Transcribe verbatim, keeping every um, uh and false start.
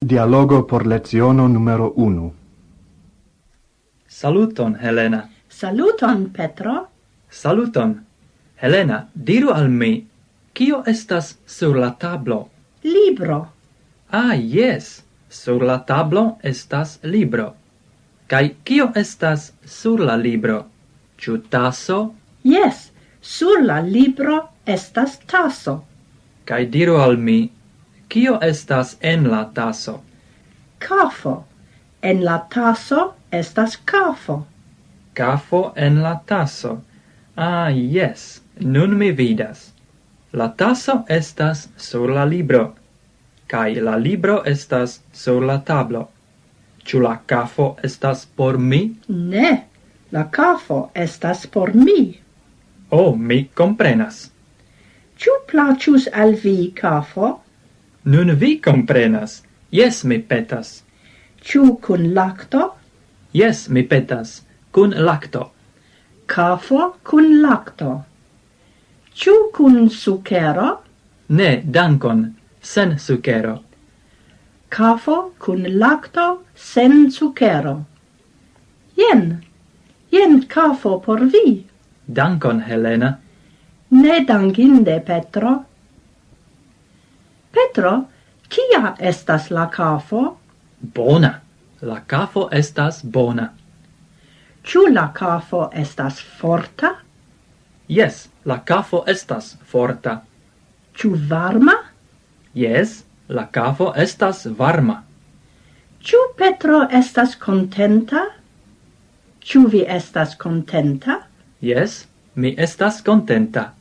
Dialogo por leciono numero unu. Saluton, Helena. Saluton, Petro. Saluton. Helena, diru al mi, kio estas sur la tablo? Libro. Ah, jes, sur la tablo estas libro. Kaj kio estas sur la libro? Ĉu taso? Jes, sur la libro estas taso. Kaj diru al mi, kio estas en la taso? Kafo. En la taso estas kafo. Kafo en la taso. Ah, jes, nun mi vidas. La taso estas sur la libro, kaj la libro estas sur la tablo. Ĉu la kafo estas por mi? Ne, la kafo estas por mi. Oh, mi komprenas. Ĉu plaĉus al vi kafo? Nun vi komprenas. Jes, mi petas. Ĉu kun lakto? Jes, mi petas. Kun lakto. Kafo kun lakto. Ĉu kun sukero? Ne, dankon. Sen sukero. Kafo kun lakto sen sukero. Jen, jen kafo por vi. Dankon, Helena. Ne dankinde, Petro. Petro, kia estas la kafo? Bona. La kafo estas bona. Ĉu la kafo estas forta? Jes, la kafo estas forta. Ĉu varma? Jes, la kafo estas varma. Ĉu Petro estas kontenta? Ĉu vi estas kontenta? Jes, mi estas kontenta.